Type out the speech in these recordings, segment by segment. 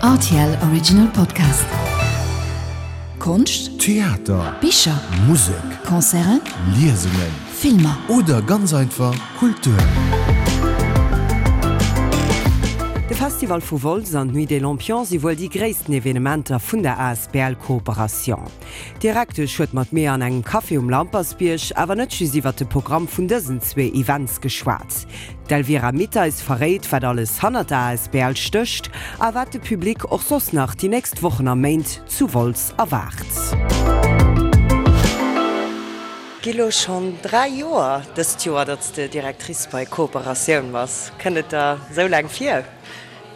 Rtl Original Podcast. Konscht, Theater, Bicher, Musek, Concerten, Liesungen, Filmer. Oder ganz einfach Kultur. De Festival vu Wolz an d'Nuit des Lampions si wuel déi gréissten Evenementer vun der asbl Cooperation. D'Direktesch huet mat mir an engem Café um Lampersbierg awer net just iwwer de Programm vun dësen zwee Events geschwat. D'Elvira Mitteis verréit, wat alles hannert der asbl stécht a wat de Public och soss nach déi nächst Wochen a Méint zu Wolz erwaart. Gi lo schonn 3 Joer dëst Joer, datt s de Directrice bei Kooperatioun bass. Kënnt et der esou laang vir?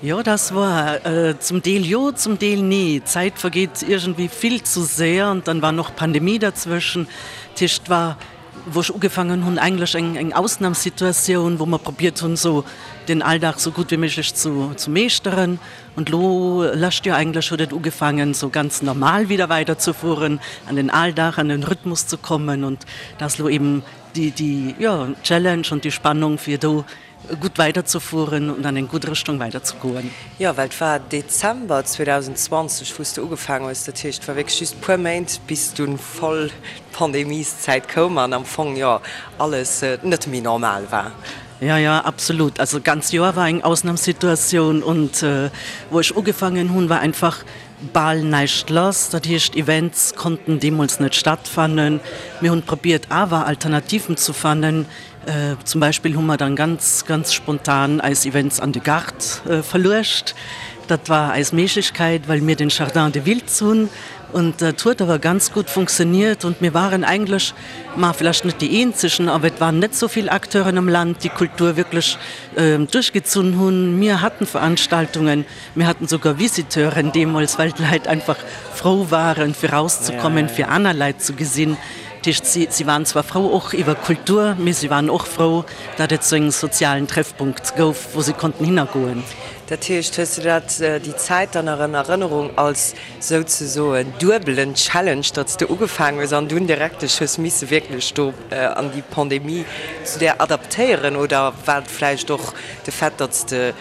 Jo, das war zum Deel jo, zum Deel nee. D'Zäit vergeet iergendwéi vill zu séier an dann war noch Pandemie dazwëschen. Dat heescht, war wou ech ugefaangen hunn, eigentlech eng eng Ausnamssituatioun, wou mer probiert hunn, esou den Alldag esou gutt wéi méiglech zu zu meeschteren. Und lo, lescht Joer eigentlech, huet et ugefaangen, esou ganz normal wieder weiderzefueren, an den Alldag, an den Rhythmus ze kommen. Und da ass lo eben déi déi, jo, Challenge und déi Spannung, fir do gutt weiderzefueren und an eng gutt Richtung weiderzegoen. Jo, well et war Dezember 2020, wou s de ugefaangen hues. Dat heescht, et war wierklech just puer Méint, bis dunn voll d'Pandemieszäit koum an am Fong, jo, alles net méi normal war. Jo, jo, absolut. Also d'ganz Joer war eng Ausnamssituatioun und wou ech ugefaangen hunn, war einfach bal näischt lass. Dat heescht, Events konnten deemools net stattfannen. Mir hunn probiert awer Alternativen zu fannen. Zum Beispill hu mer dann ganz, ganz spontan eis Events an de Gaart verluecht. Dat war eis Méiglechkeit, well mir den Jardin de Wiltz hunn. Und dat huet awer ganz gutt funktioniert. Und mir waren eigentlech, ma vlächtt net déi eenzegen, awer et waren net sou vill Acteuren am Land, déi Kultur wierklech duerchgezunn hunn. Mir haten Veranstaltungen, mir haten souguer Visiteuren deemools, well d'Leit einfach frou waren, fir rauszekommen, fir aner Leit ze gesinn. Dat heescht, si, si waren zwar frou och iwwer Kultur, mee si waren och frou, datt et sou en sozialen Treffpunkt gouf, wou si konnten hinnergoen. Dat heescht, hues de dat, déi Zäit dann nach an Erënnerung als souzesoen duebelen Challenge, datt s de ugefaangen hues an dunn direkt dech hues misse wierklech do an déi Pandemie zu där adaptéieren? Oder war et vläicht och de Fait, datt s de,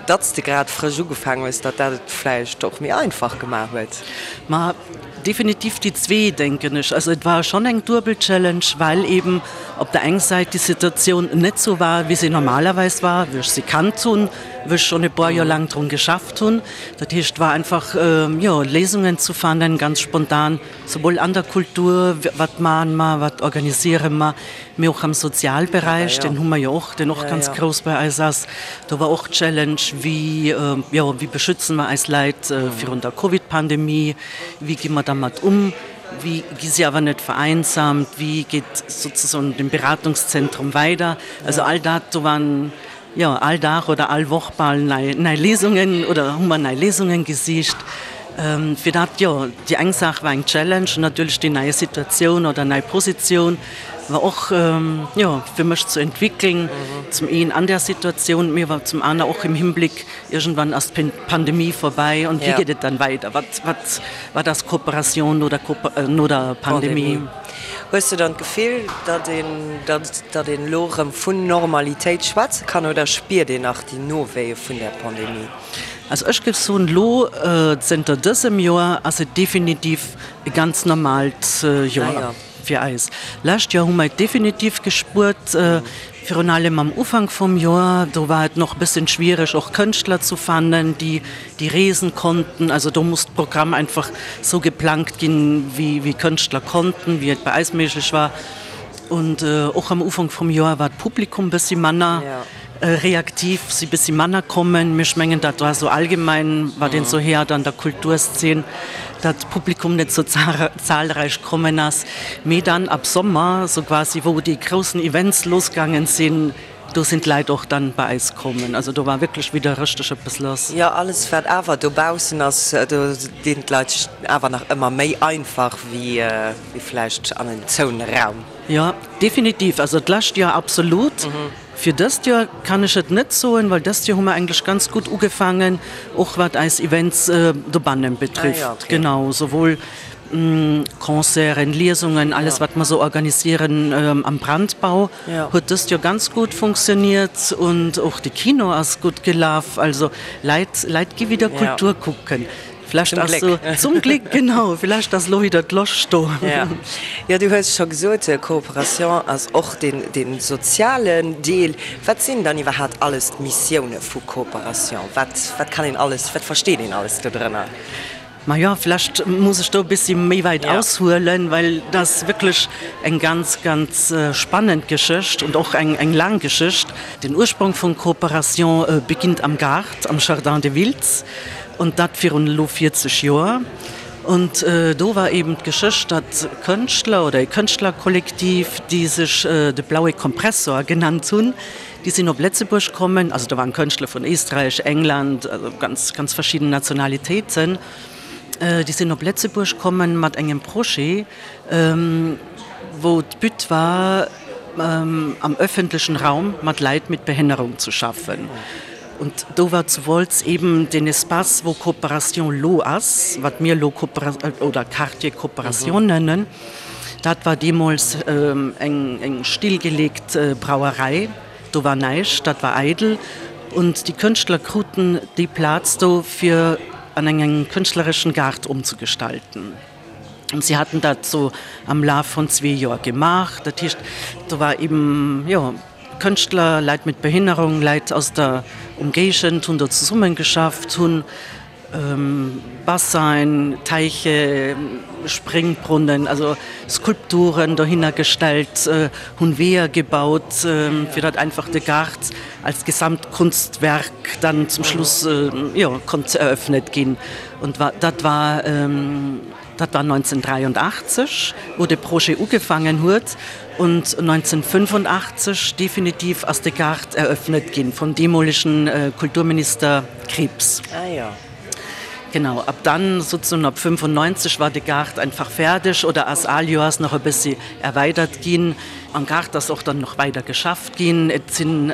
datt s de grad frësch ugefaangen hues, datt dat et vläicht och méi einfach gemaach huet? Ma Definitiv déi zwee, denken ech. Also et war schonn eng duebel Challenge, well eben op der eng Säit déi Situatioun net sou war, wéi se normalerweis war, wéi ech se kannt hunn, wou ech schonn e puer Joer laang drun geschafft hunn. Dat heescht, et war einfach, jo, Léisungen ze fannen, ganz spontan, souwuel an der Kultur, wat maache mer, wat organisiere mer, Mee och am Sozialberäich, deen hu mer jo och, deen och ganz grouss bei eis ass, do war och d'Challenge, wéi, jo, wéi beschützen mer eis Leit virun der Covid-Pandemie, wéi gi mer dermat um, wéi gi si awer net vereinsamt, wéi geet sozesoen de Beratungszentrum weider. Also all dat, do waren, jo, all Dag oder all Woch bal nei, nei Léisungen oder hu mer nei Léisungen gesicht fir dat. Jo, déi eng Saach war eng Challenge an natierlech déi nei Situatioun oder nei Positioun war och, jo, fir mech ze entwickeln, zum een an där Situatioun, mee awer zum aner och im Hinblick, iergendwann ass d'Pandemie vorbei und wéi geet et dann weider, wat, wat, wat ass Kooperation no der, no der Pandemie? Hues de dann d'Gefill, datt een, datt een elo erëm vun Normalitéit schwätze kann oder spiert een nach déi Nowéie vun där Pandemie? Also ech géif soen, elo zënter dësem Joer ass et definitiv e ganz normaalt Joer fir eis. Lescht Joer hu mer et definitiv gespuert, virun allem am Ufank vum Joer, do war et nach e bëssen schwiereg och Kënschtler zu fannen, déi déi reesen konnten. Also do muss d'Programm einfach sou geplangt ginn, wéi wéi Kënschtler konnten, wéi et bei eis méiglech war. Und och am Ufank vum Joer war d'Publikum bëssi manner reaktiv, si bëssi manner kommen. Mee ech mengen, dat war sou allgemein, wat een sou héiert an der Kulturszene, datt d'Publikum net sou zahlreich kommen ass. Mee dann ab Sommer, sou quasi wou déi groussen Events losgaangen sinn, Do sinn d'Leit och dann bei eis kommen. Also do war wierklech wieder rëchteg eppes lass. Jo, alles wat awer dobaussen ass, do dinn d'Leit sech awer nach ëmmer méi einfach wéi vläicht an en zoune Raum. Jo, definitiv. Also d'lescht Joer absolut. Fir dëst Joer kann ech et net soen, well dëst Joer hu mer eigentlech ganz gutt ugefaangen, och wat eis Events dobannen betrifft. Genau, souwuel. Concerten, Liesungen, alles wat mer sou organisieren am Brandbau huet dëst Joer ganz gutt funktioniert und och de Kino ass gutt gelaf. Also Leit Leit gi wieder Kultur kucken. Vlächtt ass sou, zum Gléck, genau, vlächtt ass elo wieder d'Loscht do. Jo, du hues scho gesot, Coopération ass och deen dee sozialen Deel. Wat sinn dann iwwerhaapt alles d'Missioune vu Coopération? Wat wat kann een alles, wat versteet een alles dodrënner? Majo, vlächtt muss ech do e bëssi méi wäit aushuelen, well dat ass wierklech eng ganz, ganz spannend Geschicht und och eng, eng laang Geschicht. Den Ursprong vun Coopération beginnt am Gaart, am Jardin de Wiltz, und dat virun elo 40 Joer. Und do war eben d'Geschicht, datt Kënschtler oder e Kënschtlerkollektiv, déi sech de Blaue Kompressor genannt hunn, Déi sinn op Lëtzebuerg kommen, also do waren Kënschtler vun Éisträich, England, also ganz, ganz verschidden Nationalitéiten. Déi sinn op Lëtzebuerg kommen mat engem Projet, wou d'But war, am öffentlechen Raum mat Leit mit Behinnerung ze schaffen. Und do war zu Wolz eben deen Espace, wou Coopération lo ass, wat mir elo oder Quartier Coopération nennen. Dat war deemools eng stillgeleegt Brauerei, do war näischt, dat war eidel. Und déi Kënschtler kruten déi Plaz do, fir an engem kënschtlereschen Gaart omzegestalten. Und si haten dat sou am Laf von zwee Joer gemaach. Dat heescht, do war eben, jo, Kënschtler, Leit mit Behinnerung, Leit aus der Umgéigend hunn do zesummengeschafft, hunn Bassin, Teiche, Springbrunnen, also Skulpturen dohinner gestellt, hunn Weeër gebaut, fir datt einfach de Gaart als Gesamtkunstwerk dann zum Schluss, jo, konnt eröffnet ginn. Und dat war, dat war 1983, wou de Projet ugefaangen huet, und 1985 definitiv ass de Gaart eröffnet ginn vum deemolegen Kulturminister Krieps. Ah jo. Genau, ab dann, sozusagen ab 95 war de Gaart einfach fäerdeg oder ass al Joers nach e bëssi erweidert ginn. Am Gaart ass och dann nach weider geschafft ginn. Et sinn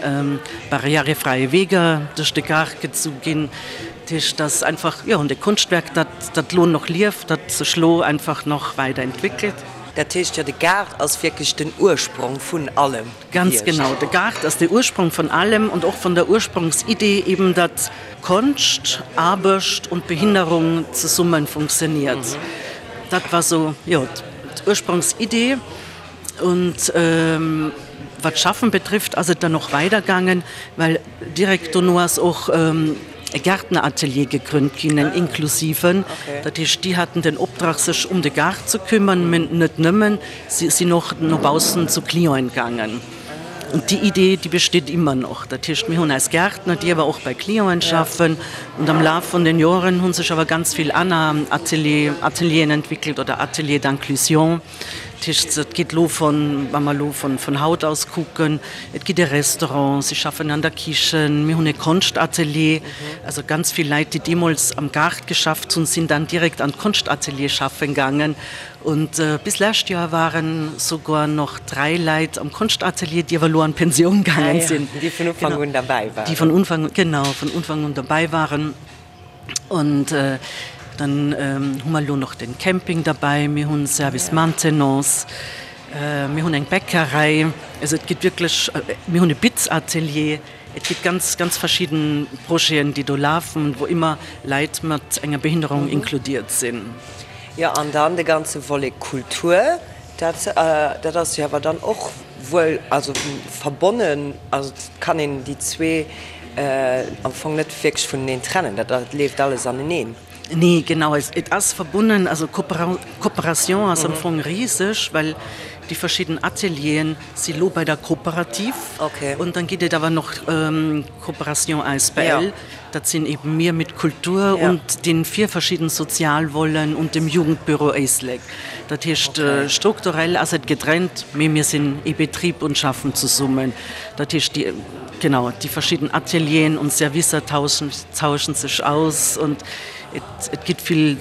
barrièrefräie Weeger duerch de Gaart gezu ginn. Dat heescht, dass einfach, jo, de Konschtwerk, dat dat lo nach lieft, dat sech lo einfach nach weider entwéckelt. Dat heescht jo, de Gaart ass wierklech den Ursprong vun allem. Ganz genau, de Gaart ass de Ursprong vun allem und och vun der Ursprungsidee eben, datt Konscht, Aarbecht und Behinderung zesummen funktioniert. Dat war sou, jo, d'Ursprungsidee. Und wat d'Schaffen betrifft, ass et dann och weidergaangen, well direkt dono ass och e Gärtneratelier gegrünnt ginn, en inklusiven. Dat heescht, déi haten den Optrag, sech um de Gaart ze kümmern, mä net nëmmen, si sinn och no baussen zu Clienten gaangen. Und déi Idee, déi besteet immer noch. Dat heescht, mir hunn eis Gärtner, déi awer och bei Clienten schaffen. Und am Laf vun den Joren hu sech awer ganz vill aner Atelier, Atelieren entwickelt oder Ateliers d'inclusion. Dat heescht, et geet elo von, wa mer elo von, von haut aus kucken, et ginn e Restaurant, si schaffen an der Kichen, mir hunn e Konschtatelier. Also ganz vill Leit, déi deemools am Gaart geschafft hunn, sinn dann direkt an d'Konschtatelier schaffen gaangen. Und bis lescht Joer waren souguer noch 3 Leit am Konschtatelier, déi awer elo an d'Pensioun gaangen sinn. Déi vun Ufank un derbäi waren. Déi vun Ufank, genau, vun Ufank un derbäi waren. Und dann hu mer elo nach den Camping derbäi, mir hunn Service Maintenance, mir hunn eng Bäckerei, also et gëtt wierklech, mir hunn e Bitzatelier, et gëtt ganz, ganz verschidden Projeten, déi do lafen, wou ëmmer Leit mat enger Behinderung inkludiert sinn. Jo, an dann de ganze Volet Kultur, dat, dat ass jo awer dann och wuel, also verbonnen, also et kann een déi zwee am Fong net wierklech vuneneen trennen, dat leeft alles aneneen. Nee, genau, et ass verbonnen, also Coopération ass am Fong riseg, well déi verschidden Atelieren si lo bei der Cooperative und dann gëtt et awer nach Coopération asbl. Dat sinn eben mir mit Kultur und den vier verschidden Sozialvoleten und dem Jugendbüro Éislek. Dat heescht, strukturell ass et getrennt, mee mir sinn ee Betrib und schaffen zesummen. Dat heescht, déi. genau, déi verschidden Atelieren und Servicer tauschen, tauschen sech aus und et, et gitt vill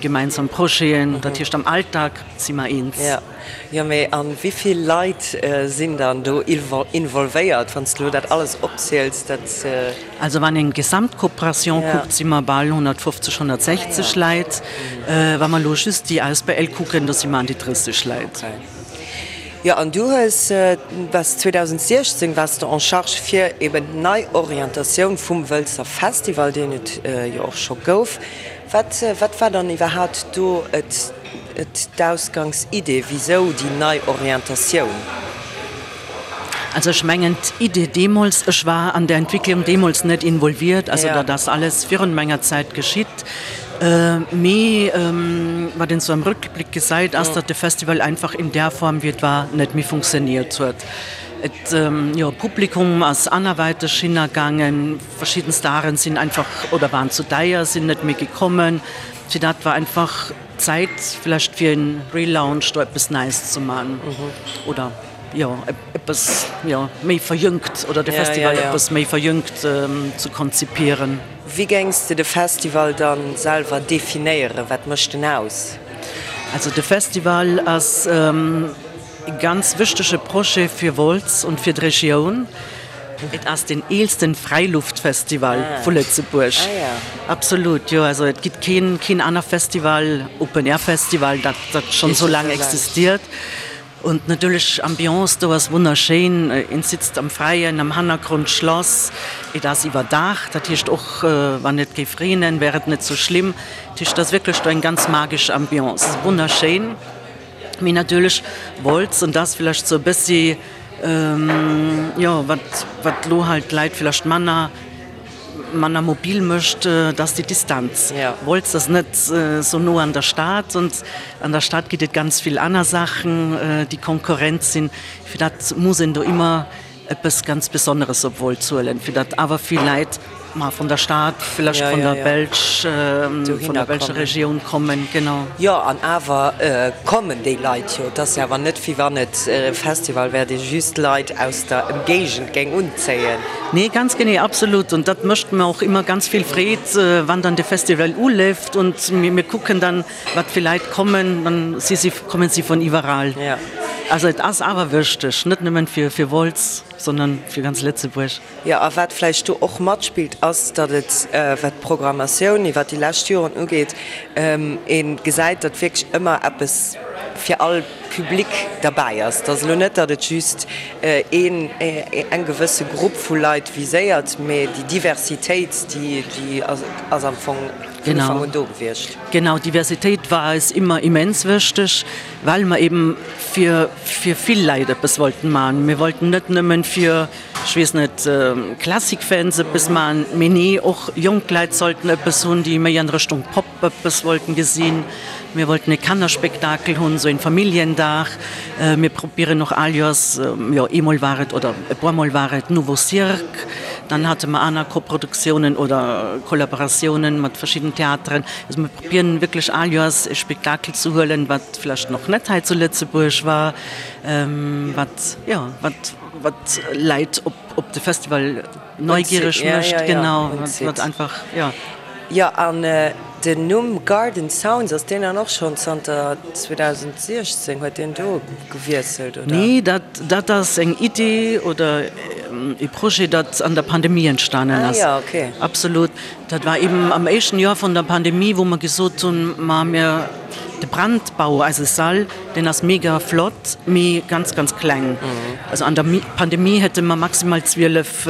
gemeinsam Projeten. Dat heescht am Alltag si mer eens. Jo, jo, mee a wéi vill Leit sinn dann do involvéiert, wann s de elo dat alles opziels, dat. Also wann een d'Gesamtkooperation kuckt, si mer bal 150, 160 Leit. Wa mer elo just déi Asbl kucken, do si mer an déi 30 Leit. Jo, an du hues, waars 2016 waars de en charge fir eben d'Neiorientatioun vum Wëlzer Festival, deen et jo och scho gouf. Wat, wat war dann iwwerhaapt do et, et d'Ausgangsidee? Wisou déi nei Orientatioun? Also ech mengen d'Idee deemools, ech war an der Entwicklung deemools net involviert, also dat ass alles virun menger Zäit geschitt, mee wat een sou am Rückblick gesäit, ass, datt de Festival einfach in där Form wéi et war net méi funktioniert huet. Et, jo, d'Publikum ass anerwäiteg hinnergaangen, verschidden Staren sinn einfach oder waren zu deier, sinn net méi gekommen, fir dat war einfach Zäit vlächtt fir en Relaunch, do eppes Neies ze man oder. jo, eppes, jo, méi verjüngt oder de Festival eppes méi verjüngt ze konzipieren. Wéi géings de de Festival dann selwer definéieren? Wat mécht en aus? Also de Festival ass e ganz wichtege Projet fir Wolz und fir d'Regioun. Et ass den eelsten Fräiluftfestival vu Lëtzebuerg. Absolut, jo. Also et gitt keen, keen aner Festival, Open-Air-Festival, dat, dat schonn esou laang existiert. Und natierlech Ambiance do ass wonnerschéin, een sitzt am Fräien, am Hannergrond d'Schlass, et ass iwwerdacht, dat heescht och wann et géif reenen wär et net sou schlimm, dat heescht et ass wierklech do eng ganz magesch Ambiance, wonnerschéin. Mee natierlech Wolz, an dat ass villäicht sou e bëssi jo wat wat lo halt d'Leit villäicht manner manner mobil mécht, dat ass déi Distanz. Wolz ass net esou no an der Stad und an der Stad gitt et ganz vill aner Saachen, déi Konkurrent sinn. Fir dat muss een do ëmmer eppes ganz Besonneres op Wolz huelen, fir datt awer vill Leit ma vun der Stad, villäicht vun der Belsch, vun der belscher Regioun kommen. Genau. Jo, an awer kommen déi Leit jo. Et ass jo awer net, wéi wann et e Festival wär, dee just Leit aus der Emgéigend géing unzéien. Nee, ganz genee, absolut. Und dat mécht mer och ëmmer ganz vill Freed, wann dann de Festival uleeft und mir kucken dann, wat fir Leit kommen, dann si si, kommen si vun iwwerall. Also et ass awer wichteg, net nëmmen fir fir Wolz, sondern fir ganz Lëtzebuerg. Jo, a wat vläicht do och matspillt, ass, datt et, wat d'Programmatioun iwwert déi lescht Joren ugeet, ee gesäit, datt wierklech ëmmer eppes fir all Public derbäi ass. Et ass elo net, datt et just een, eng gewësse Grupp vu Leit viséiert, mee déi Diversitéit, déi, déi ass am Fong vun Ufank un do gewiescht. Genau, Diversitéit war eis ëmmer immens wichteg, well mer eben fir, fir vill Leit eppes wollten maachen. Mir wollten net nëmmen fir ech weess net, Classic-Fans eppes maachen, mee nee, och jonk Leit sollten eppes hunn, déi méi an Richtung Pop eppes wollten gesinn. Mir wollten e Kannerspektakel hunn, sou een Familljendag. Mir probieren och all Joers, jo eemol war et oder e puer mol war et Nouveau Cirque, dann hate mer aner Koproduktiounen oder Kollaboratiounen mat verschidden Theateren. Also mir probieren wierklech all Joers e Spektakel ze huelen, wat vläicht nach net hei zu Lëtzebuerg war, wat, jo, wat. Wat Leit op op de Festival neugiereg mécht, genau, wat einfach, jo. Jo, an den Numm Garden Sounds, ass deen dann och schonn zanter 2016, huet deen do gewiesselt, oder? Nee, dat dat ass eng Idee oder e Projet, dat an der Pandemie entstanen ass. Ah jo, okay. Absolut. Dat war eben am éischten Joer vun der Pandemie, wou mer gesot hunn, ma mir, de Brandbau, eise Sall, deen ass mega flott, mee ganz, ganz kleng. Also an der Pandemie hätte mer maximal 12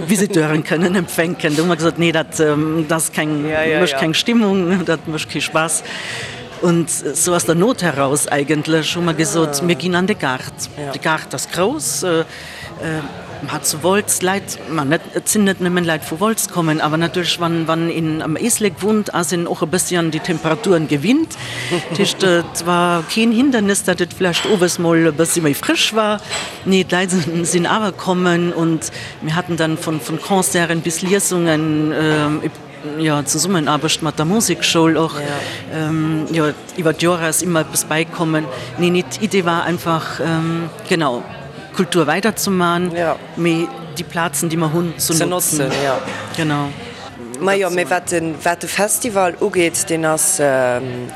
Visiteuren kënnen empfänken. Do hu mer gesot, nee, dat ass keng, mécht keng Stimmung, dat mécht kee Spaass. Und sou aus der Not heraus eigentlech hu mer gesot, mir ginn an de Gaart. De Gaart ass grouss. Ma zu Wolz, Leit, ma net, et sinn net nëmmen Leit vu Wolz kommen, awer natierlech wann, wann een am Éislek wunnt, ass een och e bëssi an déi Temperaturen gewinnt. Dat heescht, et war keen Hindernis, datt et vläicht owes mol e bëssi méi frësch war. Nee, d'Leit sinn awer kommen und mir haten dann vun, vun Concerten bis Liesungen, jo, Zesummenaarbecht mat der Musekschoul och, jo, iwwer d'Joer ass ëmmer eppes bäikommen. Nee, nee, d'Idee war einfach, genau. Kultur weiderzeman, mee déi Plazen, déi mer hunn, ze notzen. Genau. Majo, mee wat de, wat de Festival ugeet, deen ass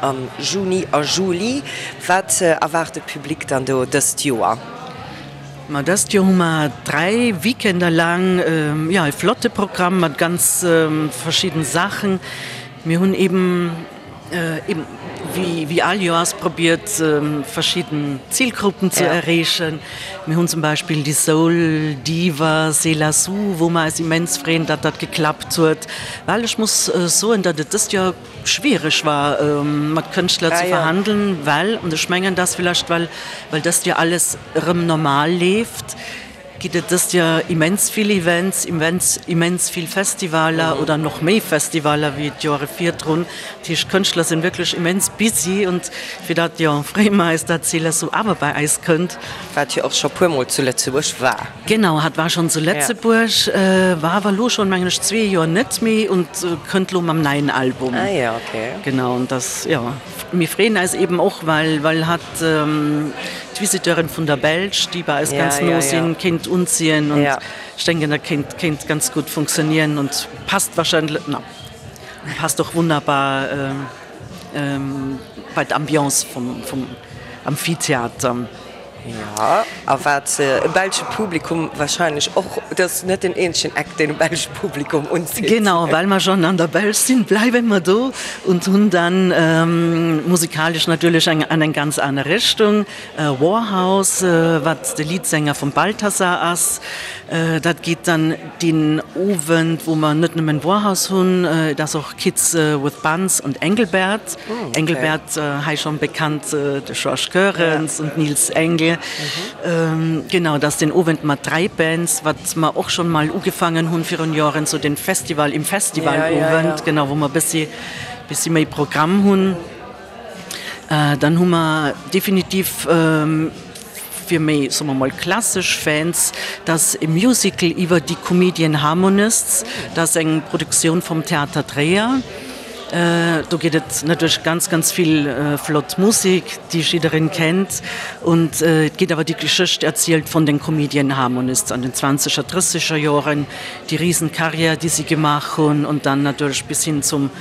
am Juni a Juli. Wat erwaart de Public dann do dëst Joer? Ma dëst Joer hu mer 3 Weekender laang, jo, e flotte Programm mat ganz verschidden Saachen. Mir hunn eben, eben wéi, wéi all Joers probiert, verschidden Zilgruppen ze erreechen. Mir hunn zum Beispill déi Soul Diva Selah Sue, wou mer eis immens freeën, datt dat geklappt huet, well ech muss soen, datt et dëst Joer schwiereg war, mat Kënschtler ze verhandeln, well, an ech mengen, dass villäicht well, well dëst Joer alles erëm normal leeft, Gitt et dëst Joer immens vill Events, immens immens vill Festivaler oder noch méi Festivaler wéi d'Joere virdrun. Dat heescht d'Kënschtler sinn wierklech immens busy und fir dat jo freeë mer eis dat Céleste awer bei eis kënnt. Wat jo och scho puer mol zu Lëtzebuerg war. Genau, hat war schonn zu Lëtzebuerg, war awer elo schonn mengen ech zwee Joer net méi und kënnt lo mam neien Album. Ah jo, okay. Genau und das jo. Mir freeën eis eben och well well hat d'Visiteuren vun der Belsch, déi bei eis ganz no sinn, kéint unziehen und ech denken dat kéint kéint ganz gutt funktionieren und passt wahrscheinlech, na passt och wunnerbar bei d'Ambiance vum vum Amphitheater. Jo, a wat e belsche Publikum wahrscheinlech och, et ass net den eenzegen Act, deen e belsche Publikum unzitt. Genau, well mer schonn an der Belsch sinn, bleiwe mer do und hunn dann musikalesch natierlech eng an eng ganz aner Richtung, Warhouse, wat de Leadsänger vum Balthazar ass. Dat geet dann deen Owend, wou mer net nëmmen Warhouse hunn, et ass och Kids with Buns und Engelbert. Engelbert, hei schonn bekannt, de Georges Goerens und Niels Engel. Genau, dat ass den Owend mat 3 Bands, wat mer och schonn mol ugefaangen hunn virun Joren, sou den Festival im Festivalowend, genau, wou mer bëssi, bëssi méi Programm hunn. Dann hu mer definitiv fir méi, soe mer mol, klassesch Fans, dat e Musical iwwer déi Comedian Harmonists. Dat ass eng Produktioun vum Theater Tréier. Do geet et natierlech ganz, ganz vill flott Musek, déi jiddereen kennt. Und et geet awer déi Geschécht erzielt vun den Comedian Harmonists an den zwanzeger, drësseger Joren, déi Riesenkarriär, déi si gemaach hunn und dann natierlech bis hin zum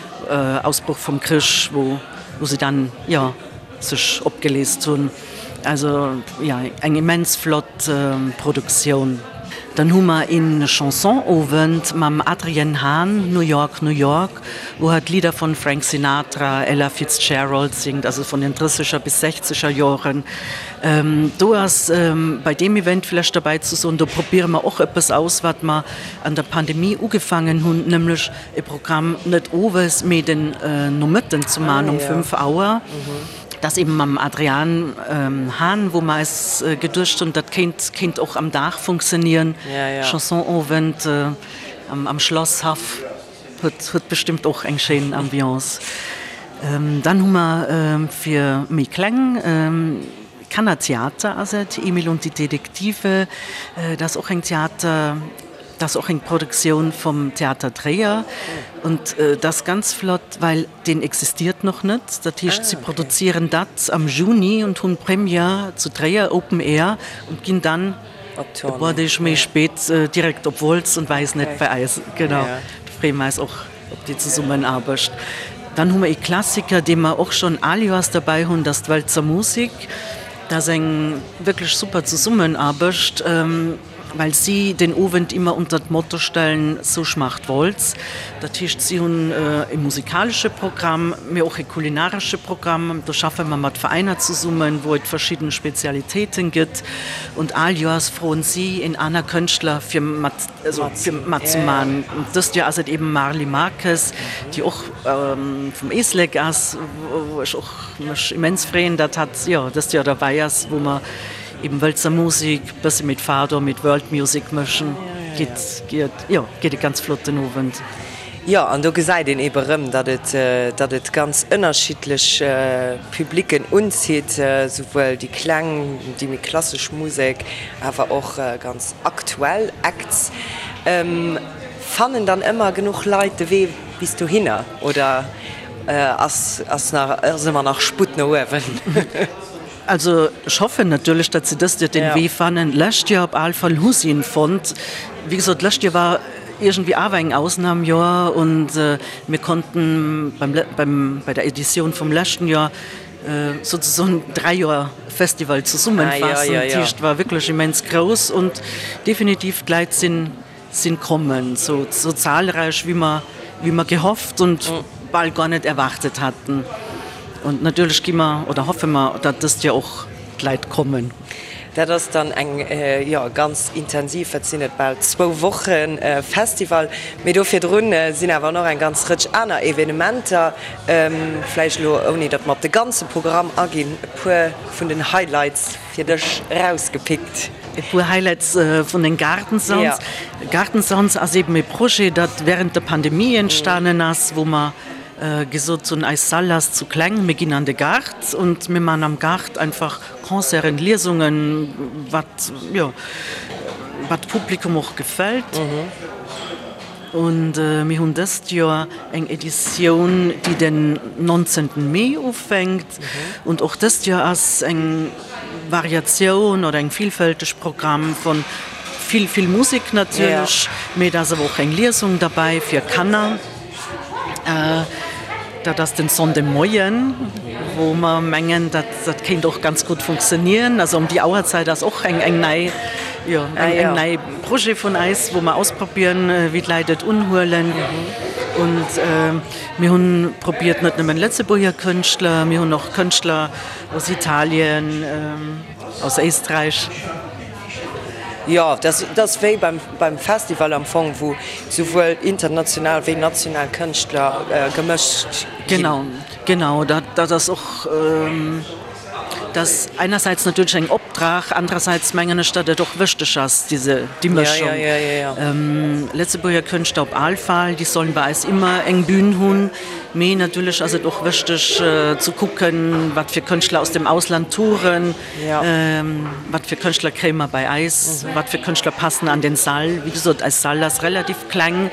Ausbroch vum Krich, wou se dann, jo, sech opgeleest hunn. Also, jo, eng immens flott Produktioun. Dann hu mer een Chansonowend mam Adrienne Hahn, New York, New York, wou hatt Lidder von Frank Sinatra, Ella Fitzgerald singt, also von den drësseger bis sechzeger Joren. Do ass bei deem Event vlächcht derbäi ze soen, do probiere mer och eppes aus, wat mer an der Pandemie ugefaangen hunn, nämlech e Programm net owes, mee den Nomëtten ze man um 5 Auer. Dat eben mam Adrian Hahn, wou mer eis geduecht hunn, dat kéint kéint och am Dag funktionieren. Chansonowend am Schlasshaff huet huet bestëmmt och eng schéin Ambiance. Dann hu mer fir méi kleng Kannertheater ass et, Emil und die Detektive, dat ass och eng Theater. Dat ass och eng Produktioun vum Theater Tréier und dat ass ganz flott, well deen existiert noch net. Dat heescht, si produzieren dat am Juni und hunn Première zu Tréier, Open Air, und ginn dann e puer Deeg méi spéit direkt op Wolz und weisen et bei eis. Genau, do freeë mer eis och op déi Zesummenaarbecht. Dann hu mer ee Klassiker, dee mer och schonn al Joers derbäi hunn, dat ass d'Wëlzer Musik. Dat ass eng wierklech super Zesummenaarbecht. Well si den Owend immer unter d'Motto stellen, So schmacht Wolz. Dat heescht, si hunn e musikalesche Programm, mee och e kulinaresche Programm. Do schaffe mer mat Veräiner zesummen, wou et verschidden Spezialitéiten gëtt. Und all Joers froen si en aner Kënschtler fir mat, also fir matzemaachen. Und dëst Joer ass et eben Marly Marques, déi och vum Éislek ass, wou ech och mech immens freeën, datt hatt, jo, dëst Joer derbäi ass, wou mer Eben Wëlzer Musik, bësse mit Fado, mit World Music mëschen, geet, geet, jo, geet e ganz flotten Owend. Jo, an do gesäit een ebe rëm, datt et, datt et ganz ënnerschiddlech Publicken unzitt, souwuel déi kleng, déi méi klassesch Musek, awer och ganz aktuell Acts. Fannen dann ëmmer genuch Leit de Wee bis dohinner oder ass, ass nach, ass ëmmer nach Sputt no uewen? Also ech hoffen natierlech, datt se dëst Joer den Wee fannen. D'lescht Joer op all Fall hu si en fonnt. Wéi gesot, d'lescht Joer war iergendwéi awer eng Ausnamjoer und mir konnten beim, beim, bei der Editioun vum leschten Joer souzesoen 3 Joer Festival zesummenfaassen. Dat heescht, war wierklech immens grouss und definitiv d'Leit sinn sinn kommen, sou sou zahlreich wéi mer wéi mer gehofft und bal gar net erwartet hatten. Und natierlech gi mer oder hoffe mer, datt dëst Joer och d'Leit kommen. Dat ass dann eng, jo, ganz intensiv, wat sinn et, bal zwou Woche Festival. Mee do virdrun sinn awer nach eng ganz Rëtsch aner Evenementer. Vläicht elo, ouni datt mer op de ganze Programm aginn, e puer vun den Highlights. Fir dech erausgepickt. E puer Highlights vun den Garden Sounds. Garden Sounds ass eben e Projet, dat während der Pandemie entstanen ass, wou mer gesot hunn, eis Salle ass zu kleng, mir ginn an de Gaart und mir man am Gaart einfach Concerten, Liesungen, wat, jo, wat Publikum och gefält. Und mir hunn dëst Joer eng Editioun, déi den 19. Mee ufänkt. Und och dëst Joer ass eng Variatioun oder eng villfälteg Programm von vill, vill Musek natierlech, mee et ass awer och eng Liesung derbäi fir Kanner. Dat ass den Sonndemoien, wou mer mengen, dat dat kéint och ganz gutt funktionieren. Also ëm déi Auerzäit ass och eng eng nei, jo, eng eng nei Projet vun eis, wou mer ausprobieren, wéi d'Leit et unhuelen. Und mir hunn probiert net nëmmen Lëtzebuerger Kënschtler, mir hunn och Kënschtler aus Italien, aus Éisträich. Jo, dat ass wéi beim Festival am Fong, wou souwuel international wéi national Kënschtler gemëscht ginn. Genau, genau. Dat ass och, dat ass einerseits natierlech eng Opdrag, andererseits mengen ech, datt et och wëchteg ass, diese, déi Mëschung. Lëtzebuerger Kënschtler op al Fall, déi sollen bei eis ëmmer eng Bühn hunn, mee natierlech ass et och wëchteg ze kucken, wat fir Kënschtler aus dem Ausland touren. Wat fir Kënschtler kréie mer bei eis? Wat fir Kënschtler passen an den Sall? Wéi gesot, eis Sall ass relativ kleng,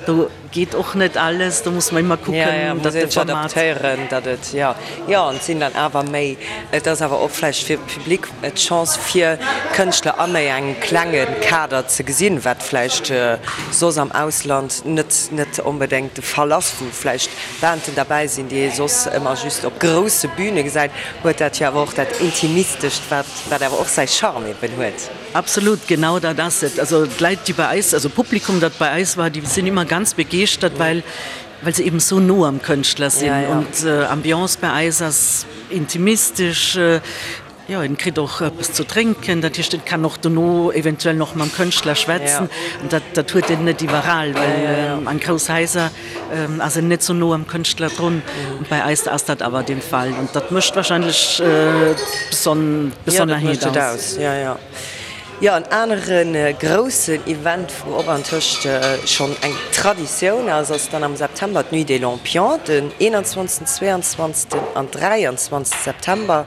do geet och net alles, do muss mer ëmmer kucken, datt de Format. Adaptéieren, datt et, jo, jo, an et sinn dann awer méi, et ass awer och vläicht fir de Public d'Chance fir Kënschtler a méi engem klenge Kader ze gesinn, wat vläicht soss am Ausland net, net onbedéngt de Fall ass, wou vläicht Banden derbäi sinn, déi ee soss ëmmer just op grousse Büne gesäit, huet dat jo awer och dat Intimistescht, wat wat awer och säi Charme eben huet. Absolut, genau dat ass et. Also d'Leit, déi bei eis, also d'Publikum, dat bei eis war, déi sinn ëmmer ganz begeeschtert, well well se eben esou no am Kënschtler sinn. Und Ambiance bei eis ass intimistesch. Jo, en kritt och eppes zu drénken, dat heescht, en kann och dono eventuell nach mam Kënschtler schwätzen. An dat, dat huet en net iwwerall, well an grouss Haiser ass en net sou no am Kënschtler drun. Und bei eis ass dat awer den Fall. Und dat mécht wahrscheinlech d'Besonnerheet aus. Jo, en anere groussen Event, wou och antëscht schonn eng Traditioun ass, ass dann am September d'Nuit des Lampions, den 21., 22. an 23. September.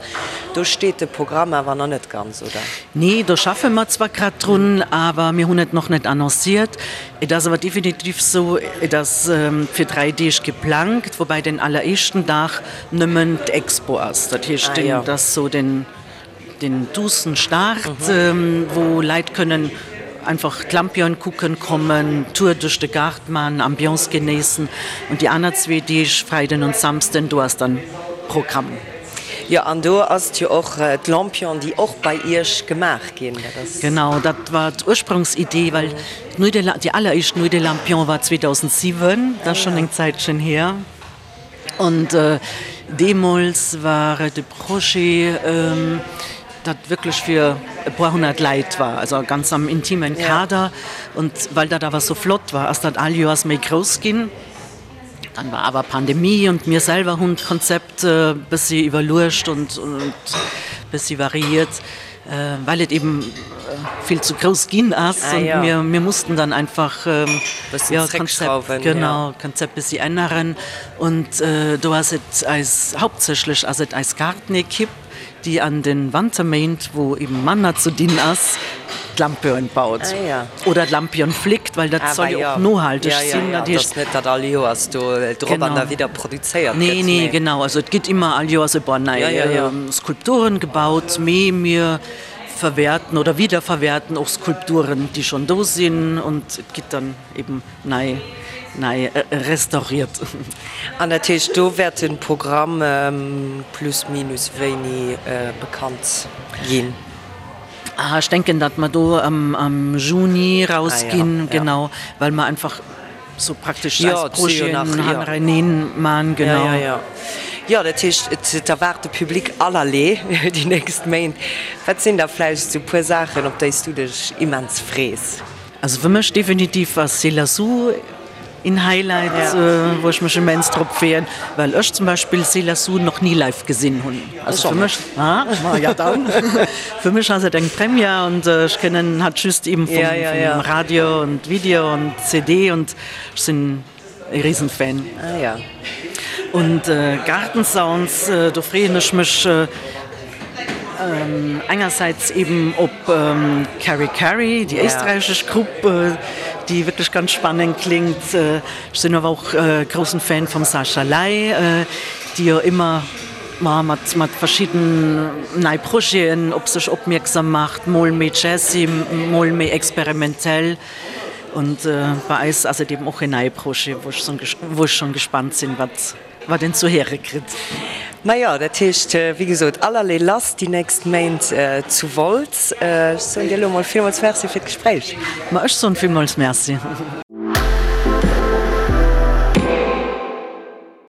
Do steet de Programm awer nach net ganz, oder? Nee, do schaffe mer zwar grad drun, awer mir hunn et nach net annonciert. Et ass awer definitiv sou, et ass fir 3 Deeg geplangt, woubäi den alleréischten Dag nëmmen d'Expo ass. Dat heescht, dat ass sou den. Den duussen Start, wou Leit kënnen einfach d'Lampion kucken kommen, Tour duerch de Gaart man, Ambiance genéissen. Und déi aner zwee Deeg, Freiden und Samsden, do ass dann Programm. Jo, an do ass et jo och d'Lampion, déi och bei Iech gemaach ginn. Dat ass. Genau, dat war d'Ursprungsidee, well d'Nuit des, déi alleréischt Nuit des Lampions war 2007, dat ass schonn eng Zäitchen hier. Und deemools war et e Projet, dat wierklech fir e puer honnert Läit war, also ganz am intimen Kader. Und well dat awer sou flott war, ass dat all Joers méi grouss ginn. Dann war awer Pandemie und mir selwer hunn d'Konzept e bëssi iwwerluecht und bëssi variiert. Well et eben vill zu grouss ginn ass und mir mir mussten dann einfach jo d'Konzept genau d'Konzept bessi änneren und do ass et eis hauptsächlech ass et eis Gartenekipp. déi an den Wanterméint, wou eben manner ze dinn ass, d'Lampion baut oder d'Lampion fléckt, well dat soll jo och nohalteg sinn. Dat heescht net, datt all Joers do drop an derwidder produzéiert gëtt. Nee, nee, genau. Also et gëtt ëmmer all Joers e puer nei Skulpturen gebaut, mee mir verwerten oder wiederverwerten och Skulpturen, déi schonn do sinn und et gëtt dann eben nei nei restauriert. An dat heescht, do wäert de Programm plus minus wéini bekannt ginn? Ah, ech denken, datt mer do am Juni rausginn, genau, well mer einfach sou praktesch eis Projeten hannereneen man, genau. Jo, jo, jo. Dat heescht, et erwaart de Public allerlee déi nächst Méint. Wat sinn da vläicht sou puer Saachen, op déi s du dech immens frees? Also fir mech definitiv ass Selah Sue een Highlight, wou ech mech immens drop freeën, well ech zum Beispill Selah Sue nach ni live gesinn hunn. Also fir mech, ah, ma ja dann, fir mech ass et eng Première und ech kennen hatt just eben vum Radio und Video und CD und ech sinn E Riesenfan. Ah ja. Und Garden Sounds, do freeën ech mech engersäits eben op Carrie Carrie, déi éisträichesch Grupp, déi wierklech ganz spannend klingt. Ech sinn awer och groussen Fan vum Sascha Ley, déi jo ëmmer mat mat verschidden nei Projeten op sech opmierksam macht, mol méi jazzy, mol méi experimentell. Und bei eis ass et eben och en neie Projet, wou ech wou ech schon gespannt sinn, wat wat een zu héiere kritt. Majo, dat heescht, wéi gesot, allerlee lass déi nächst Méint zu Wolz. Ech soen dir elo mol villmools Merci fir d'Gespréich. Ma ech soen villmools Merci.